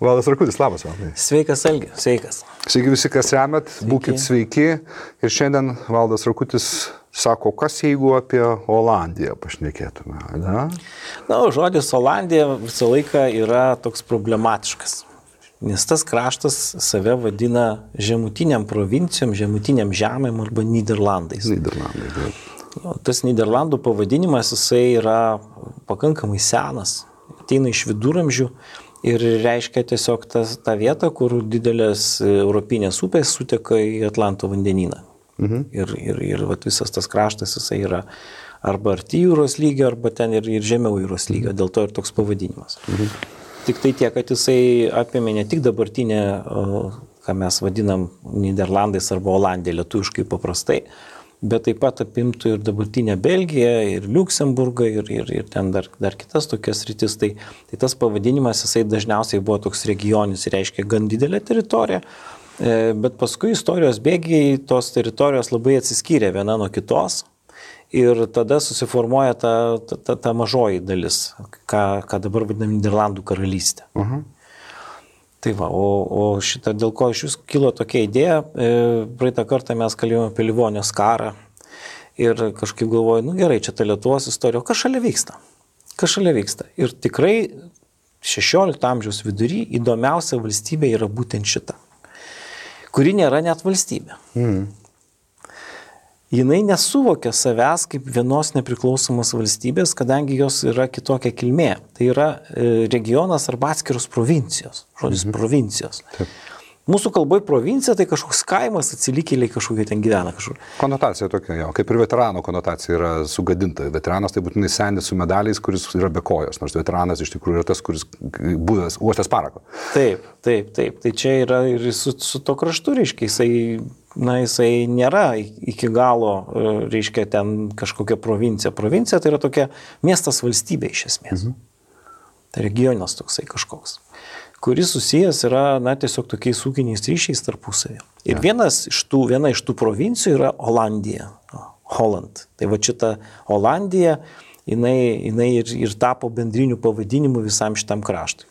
Valdas Rakutis, labas, Valdai. Sveikas, Algi, sveikas. Sveiki visi, kas remet, būkit sveiki. Ir šiandien Valdas Rakutis sako, kas jeigu apie Olandiją pašnekėtume, ne? Na, žodis Olandija visą laiką yra toks problematiškas. Nes tas kraštas save vadina žemutiniam provincijom, žemutiniam žemėm arba Nyderlandais. Nyderlandai, taip. Tas Nyderlandų pavadinimas, jisai yra pakankamai senas, ateina iš viduramžių ir reiškia tiesiog tą vietą, kur didelės europinės upės suteka į Atlanto vandenyną. Ir visas tas kraštas, jisai yra arba arti jūros lygio, arba ten ir žemiau jūros lygio, dėl to ir toks pavadinimas. Tik tai tiek, kad jisai apėmė ne tik dabartinę, ką mes vadinam Nyderlandais arba Olandija lietuviškai paprastai, bet taip pat apimtų ir dabartinę Belgiją, ir Liuksemburgą, ir ten dar kitas tokias rytis. Tai tas pavadinimas, jisai dažniausiai buvo toks regionis, reiškia gan didelę teritoriją, bet paskui istorijos bėgiai tos teritorijos labai atsiskyrė viena nuo kitos. Ir tada susiformuoja ta mažoji dalis, ką dabar vadinam Nyderlandų karalystė. Tai va, o šitą, dėl ko iš jūs kilo tokia idėja, praeitą kartą mes kalbėjome apie Livonijos karą ir kažkaip galvoju, gerai, čia ta Lietuvos istorija, o kas šalia vyksta? Kas šalia vyksta? Ir tikrai 16 amžiaus vidury įdomiausia valstybė yra būtent šita, kuri nėra net valstybė. Jinai nesuvokia savęs kaip vienos nepriklausomos valstybės, kadangi jos yra kitokia kilmė. Tai yra regionas arba atskiros provincijos. Žodis provincijos. Taip. Mūsų kalboje provincija tai kažkoks kaimas, atsilikėliai kažkokie ten gyvena kažkur. Konotacija tokia, jo, kaip ir veterano konotacija yra sugadinta. Veteranas tai būtinai senis su medaliais, kuris yra be kojos, nors veteranas iš tikrųjų yra tas, kuris buvęs uostęs parako. Taip. Tai čia yra ir su to kraštu, reiškia, jisai nėra iki galo, reiškia, ten kažkokia provincija. Provincija tai yra tokia miestas valstybė iš esmės. Tai regionas toksai kažkoks, kuris susijęs yra, tiesiog tokiais ūkiniais ryšiais tarpusavį. Ir viena iš tų provincijų yra Olandija, Holland. Tai va šita Olandija, jinai ir tapo bendriniu pavadinimu visam šitam kraštui.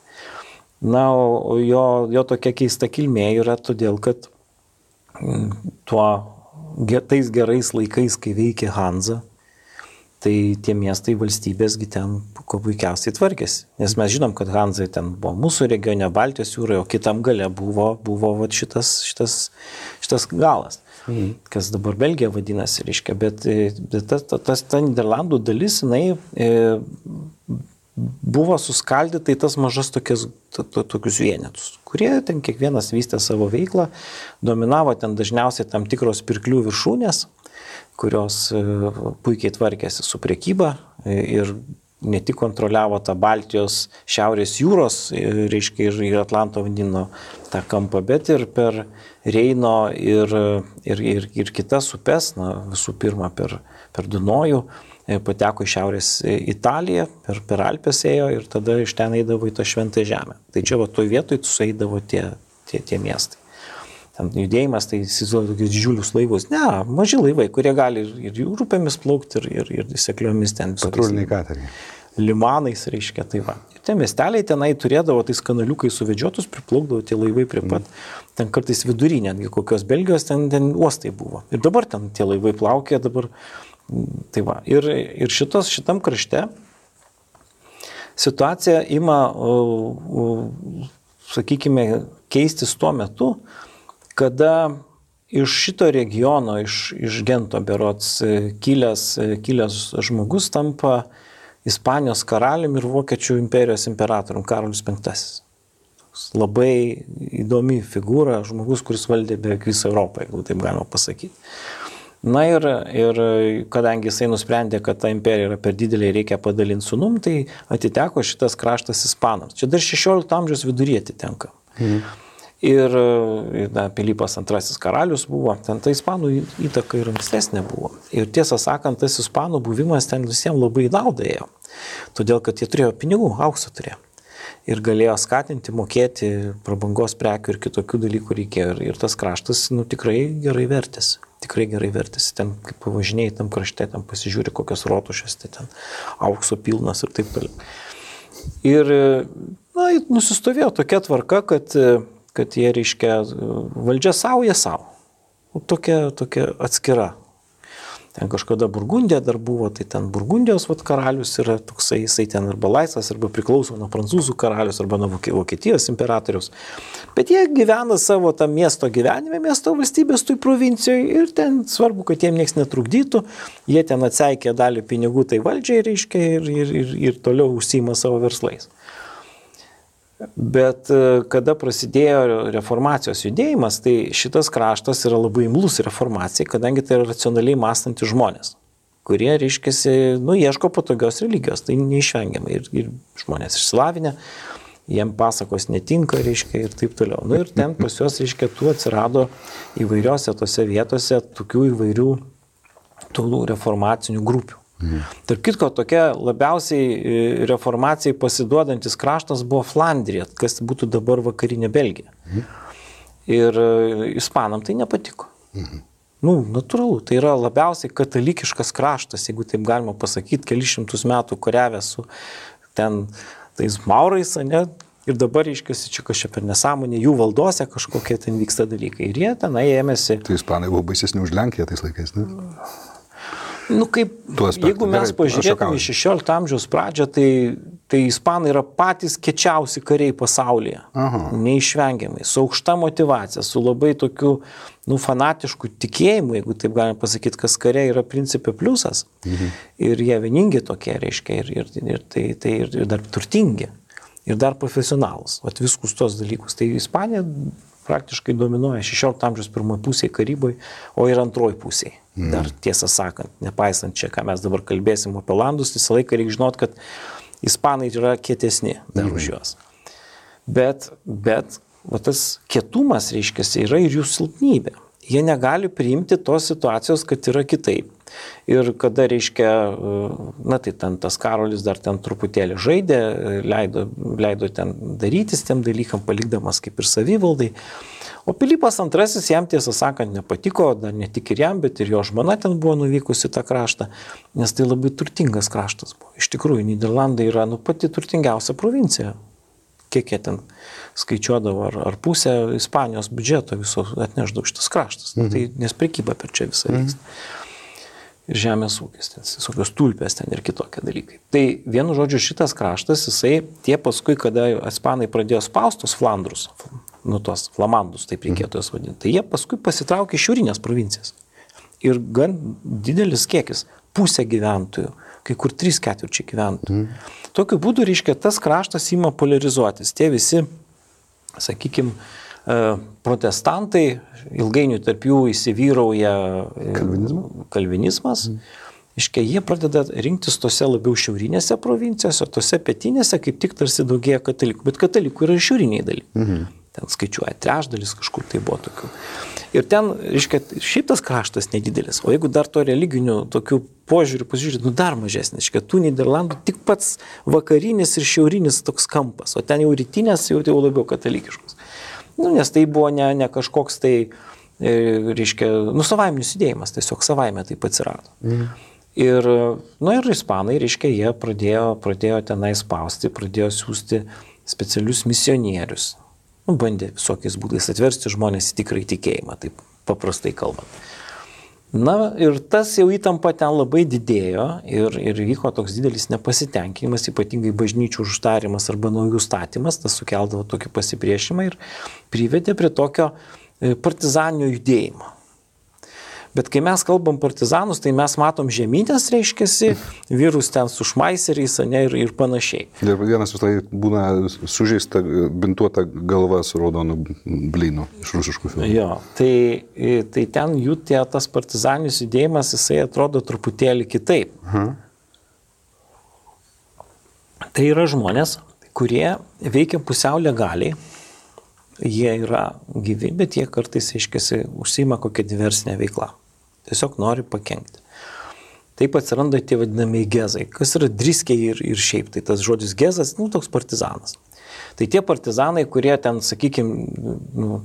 O jo tokia keista kilmė yra todėl, kad tais gerais laikais, kai veikė Hanza, tai tie miestai valstybėsgi ten kuo puikiausiai tvarkėsi. Nes mes žinom, kad Hanzai ten buvo mūsų regione, Baltijos jūroje, o kitam gale buvo šitas galas, kas dabar Belgija vadinasi, reiškia. Bet ta Nyderlandų dalis, jinai buvo suskaldyta į tas mažas tokius vienetus, kurie ten kiekvienas vystė savo veiklą, dominavo ten dažniausiai tam tikros pirklių viršūnės, kurios puikiai tvarkėsi su prekyba ir ne tik kontroliavo tą Baltijos šiaurės jūros, reiškia, ir Atlanto vandenyno tą kampą, bet ir per Reino ir kitas upes, visų pirma per Dunojų, pateko į šiaurės Italiją, per Alpes ėjo ir tada iš ten eidavo į tą šventąją žemę. Tai čia toj vietoj sueidavo tie miestai. Ten judėjimas, tai įsivaizduoja tokius didžiulius laivus. Ne, maži laivai, kurie gali ir upėmis plaukti, ir sekliomis ten. Patruliniai kateriai. Limanais, reiškia, tai va. Ir tie miesteliai tenai turėdavo tais kanaliukai suvedžiotus, priplaukdavo tie laivai prie pat. Ten kartais vidury, netgi kokios Belgijos, ten uostai buvo. Ir dabar ten tie laivai plaukė, dabar. Tai va. Ir šitam krašte situacija ima, sakykime, keistis tuo metu, kada iš šito regiono, iš Gento berods kilęs žmogus tampa Ispanijos karaliumi ir Vokiečių imperijos imperatorium Karolis V. Labai įdomi figūra, žmogus, kuris valdė beveik visą Europą, jeigu taip galima pasakyti. Ir kadangi jisai nusprendė, kad ta imperija yra per didelė ir reikia padalinti sūnum, tai atiteko šitas kraštas ispanams. Čia dar 16 amžiaus viduryje atitenka. Ir Pilypas II karalius buvo, ten ta ispanų įtaka ir ankstesnė buvo. Ir tiesą sakant, tas ispanų buvimas ten visiems labai naudą ėjo. Todėl, kad jie turėjo pinigų, aukso turėjo. Ir galėjo skatinti, mokėti prabangos prekių ir kitokių dalykų reikėjo. Ir tas kraštas tikrai gerai vertėsi. Ten, kaip pavažinėjai tam krašte, ten pasižiūri kokios rotušės, tai ten aukso pilnas ir taip toliau. Ir Na, nusistovėjo tokia tvarka, kad jie, reiškia, valdžia savo, jie savo. Tokia atskira. Ten kažkada Burgundija dar buvo, tai ten Burgundijos karalius yra toksai, jisai ten arba laisvas, arba priklauso nuo prancūzų karalius, arba nuo Vokietijos imperatoriaus. Bet jie gyvena savo tam miesto gyvenime, miesto valstybės toj provincijoje ir ten svarbu, kad jiem nieks netrukdytų. Jie ten atseikė dalį pinigų tai valdžiai, reiškia, ir toliau užsiima savo verslais. Bet kada prasidėjo reformacijos judėjimas, tai šitas kraštas yra labai imlus reformacijai, kadangi tai yra racionaliai mąstantys žmonės, kurie, reiškiasi, ieško patogios religijos, tai neišvengiamai. Ir žmonės išsilavinę, jiem pasakos netinka, reiškia, ir taip toliau. Ir ten pas juos, reiškia, tų atsirado įvairiose tose vietose tokių įvairių tų reformacinių grupių. Tarp kitko, tokia labiausiai reformacijai pasiduodantis kraštas buvo Flandrija, kas būtų dabar vakarinė Belgija. Ir ispanam tai nepatiko. Natūralu, tai yra labiausiai katalikiškas kraštas, jeigu taip galima pasakyti, kelišimtus metų kariavęs su ten tais maurais, ne? Ir dabar, reiškiasi, čia kažkaip per nesąmonė, jų valdose kažkokie ten vyksta dalykai. Ir jie tenai ėmėsi. Tai ispanai buvo baisesni už Lenkiją tais laikais, ne? Jeigu mes pažiūrėtume į 16 amžiaus pradžią, tai ispanai yra patys kečiausi kariai pasaulyje. Neišvengiamai, su aukšta motyvacija, su labai tokiu fanatišku tikėjimu, jeigu taip galime pasakyti, kas kariai yra principė pliusas. Ir jie vieningi tokie, reiškia, ir dar turtingi, ir dar profesionalus. Viskus tos dalykus. Tai Ispanija praktiškai dominuoja 16 amžiaus pirmoje pusėje Karyboje, o ir antroje pusėje. Dar tiesą sakant, nepaisant čia, ką mes dabar kalbėsim apie Olandus, visą laiką reikia žinot, kad ispanai yra kietesni dar už juos. Bet tas kietumas, reiškiasi, yra ir jų silpnybė. Jie negali priimti tos situacijos, kad yra kitaip. Ir kada, reiškia, tai ten tas Karolis dar ten truputėlį žaidė, leido ten darytis tiem dalykam, palikdamas kaip ir savivaldai. O Pilypas II jam, tiesą sakant, nepatiko, dar ne tik ir jam, bet ir jo žmona ten buvo nuvykusi tą kraštą, nes tai labai turtingas kraštas buvo. Iš tikrųjų, Nyderlandai yra pati turtingiausia provincija. Kiek jie ten skaičiuodavo, ar pusę Ispanijos biudžeto viso atneždavo šitas kraštas. Tai nes prekyba per čia visą vyksta. Ir žemės ūkis, visokios tulpės ten ir kitokie dalykai. Tai vienu žodžiu šitas kraštas, tie paskui, kada ispanai pradėjo spaustus Flandrus, tos flamandus, taip reikėtų jas vadinti, tai jie paskui pasitraukė iš šiaurinės provincijas. Ir gan didelis kiekis, pusė gyventojų, kai kur 3/4 gyventojų. Tokiu būdu, reiškia, tas kraštas ima polarizuotis. Tie visi, sakykime, protestantai, ilgainiui tarp jų įsivyrauja kalvinizmas. Iškia, jie pradeda rinktis tose labiau šiaurinėse provincijose, tose pietinėse kaip tik tarsi daugėja katalikų. Bet katalikų yra šiauriniai dalykai. Ten skaičiuoja trečdalis, kažkur tai buvo tokių. Ir ten, reiškia, šiaip tas kraštas nedidelis. O jeigu dar to religinių tokių požiūrių pasižiūrėti, dar mažesnis. Reiškia, tų Nyderlandų tik pats vakarinis ir šiaurinis toks kampas. O ten jau rytinės jau labiau katalikiškos. Nes tai buvo ne kažkoks tai, reiškia, savaiminis judėjimas, tiesiog savaime taip atsirado. Ir ispanai, reiškia, jie pradėjo tenai spausti, pradėjo siūsti specialius misionierius. Bandė visokiais būdais atversti žmonės į tikrą tikėjimą, taip paprastai kalbant. Ir tas jau įtampa ten labai didėjo ir vyko toks didelis nepasitenkinimas, ypatingai bažnyčių uždarimas arba naujų statymas, tas sukeldavo tokį pasipriešimą ir privedė prie tokio partizaninio judėjimo. Bet kai mes kalbam partizanus, tai mes matom žemynės, reiškiasi, vyrus ten su šmaiseriais, ir panašiai. Ir vienas vis tai būna sužeista, bintuota galva su raudonu blynu iš rusiškų filmų. Jo, tai ten jų tas partizaninis judėjimas, jisai atrodo truputėlį kitaip. Tai yra žmonės, kurie veikia pusiau legaliai. Jie yra gyvi, bet jie kartais, aiškiasi, užsiima kokią diversinę veiklą. Tiesiog nori pakenkti. Taip atsiranda tie vadinamieji gezai, kas yra driskiai ir šiaip. Tai tas žodis gezas, toks partizanas. Tai tie partizanai, kurie ten, sakykime,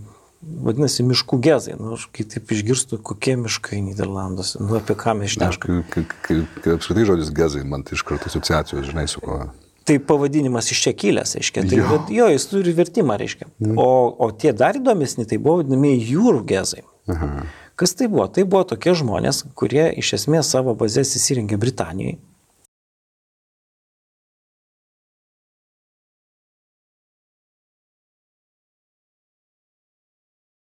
vadinasi miškų gezai. Kai taip išgirstu, kokie miškai Nyderlanduose, apie ką mes šnekame. Kai apskritai žodis gezai, man tai iš karto asociacijos, žinai, su ko. Tai pavadinimas iš čia kilęs, reiškia. Tai, jo, jis turi vertimą, reiškia. O tie dar įdomesni, tai buvo vadinamieji jūrų gezai. Kas tai buvo? Tai buvo tokie žmonės, kurie iš esmės savo bazės įsirengė Britanijoje.